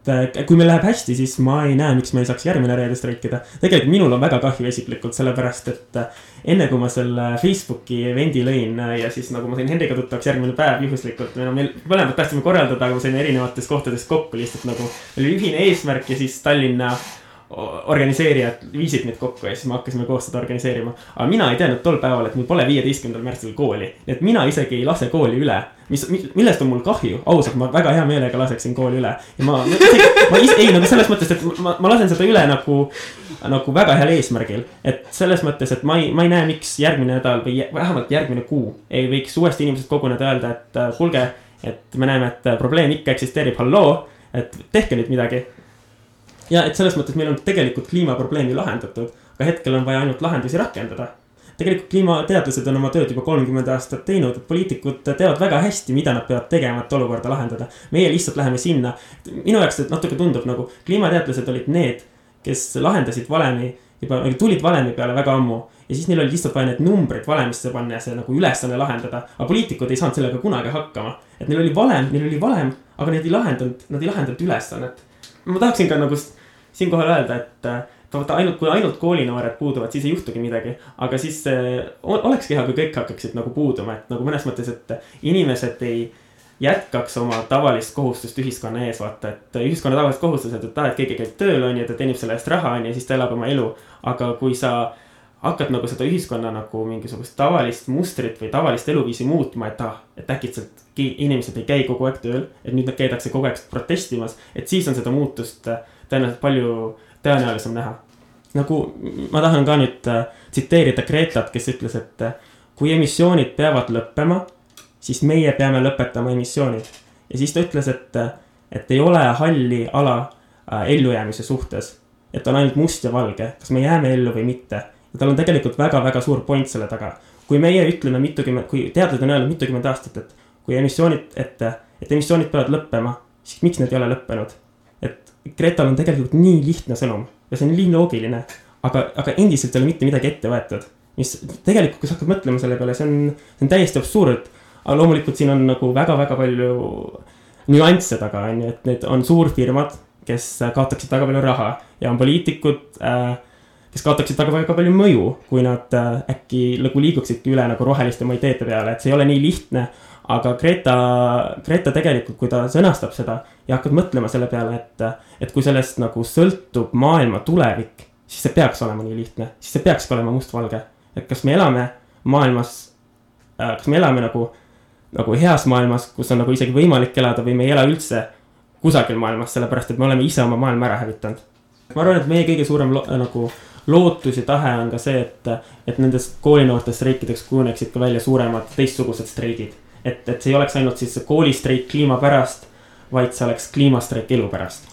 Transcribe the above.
Kui meil läheb hästi, siis ma ei näe, miks me ei saaks järgmine reede streikida. Tegelikult minul on väga kahju isiklikult, sellepärast et enne kui ma selle Facebooki eventi lõin ja siis nagu ma sain Henriga tuttavaks järgmine päev juhuslikult, meil mõlemad tahtsime korraldada, aga ma sain erinevates kohtades kokku lihtsalt nagu oli ühine eesmärk ja siis Tallinna organiseerijad viisid meid kokku ja siis me hakkasime koos seda organiseerima. Aga mina ei teadnud tol päeval, et mul pole 15. märtsil kooli. Nii et mina isegi ei lase kooli üle. Millest on mul kahju? Ausalt, ma väga hea meelega laseksin kooli üle. Ja ma nagu selles mõttes, et ma lasen seda üle nagu väga heal eesmärgil. Et selles mõttes, et ma ei näe, miks järgmine nädal või vähemalt järgmine kuu ei võiks uuesti inimesed koguneda öelda, et kuulge, et me näeme, et probleem ikka eksisteerib, halloo, et tehke nüüd midagi. Ja et selles mõttes meil on tegelikult kliimaprobleemi lahendatud, aga hetkel on vaja ainult lahendusi rakendada. Tegelikult kliimateadlased on oma tööd juba 30 aastat teinud, et poliitikud teavad väga hästi, mida nad peavad tegema, et olukorda lahendada. Meie lihtsalt läheme sinna. Minu jaoks natuke tundub nagu kliimateadlased olid need, kes lahendasid valemi, juba tulid valemi peale väga ammu. Ja siis neil oli lihtsalt vaja need numbrid valemisse panna ja see nagu ülesanne lahendada. Aga poliitikud ei saanud sellega kunagi hakkama. Et neil oli valem, aga nad ei lahendanud ülesannet. Ma tahaksin ka nagu siinkohal öelda, et kui ainult koolinoored puuduvad, siis ei juhtugi midagi. Aga siis olekski hea, kui kõik hakkaksid nagu puuduma. Et nagu mõnes mõttes, et inimesed ei jätkaks oma tavalist kohustust ühiskonna ees vaata. Et ühiskonna tavalist kohustused, et keegi käib tööl on ja ta teenib selle eest raha on ja siis ta elab oma elu. Aga kui sa hakkad nagu seda ühiskonna nagu mingisugust tavalist mustrit või tavalist eluviisi muutma, et äkitselt inimesed ei käi kogu aeg tööl, et nüüd nad käidakse kogu aeg protestimas, et siis on seda muutust tõenäoliselt palju tõenäolisem näha. Nagu ma tahan ka nüüd tsiteerida Gretat, kes ütles, et kui emissioonid peavad lõppema, siis meie peame lõpetama emissioonid. Ja siis ta ütles, et ei ole halli ala ellujäämise suhtes, et on ainult must ja valge, kas me jääme ellu või mitte. Ja tal on tegelikult väga-väga suur point selle taga. Kui meie ütleme kui teadlased on öelnud mitukümmend aastat, et kui emissioonid peavad lõppema, siis miks need ei ole lõppenud? Et Gretal on tegelikult nii lihtne sõnum ja see on nii loogiline, aga endiselt ei ole mitte midagi ette võetud. Mis tegelikult, kui sa hakkad mõtlema selle peale, see on täiesti absurd, aga loomulikult siin on nagu väga-väga palju nüansse taga, et need on suurfirmad, kes kaotaksid väga palju raha ja on poliitikud, kes kaotaksid väga palju mõju, kui nad äkki liiguksidki üle nagu roheliste ideede peale, et see ei ole nii lihtne. Aga Greta tegelikult, kui ta sõnastab seda ja hakkab mõtlema selle peale, et kui sellest nagu sõltub maailma tulevik, siis see peaks olema nii lihtne, siis see peaks olema mustvalge. Et kas me elame maailmas, kas me elame nagu heas maailmas, kus on nagu isegi võimalik elada või me ei ela üldse kusagil maailmas, sellepärast, et me oleme ise oma maailma ära hävitanud. Ma arvan, et meie kõige suurem lootus ja tahe on ka see, et nendest koolinoortest streikideks kujuneksid ka välja suuremad teistsugused streigid. Et see ei oleks ainult siis koolistreik kliima pärast, vaid see oleks kliimastreik elu pärast.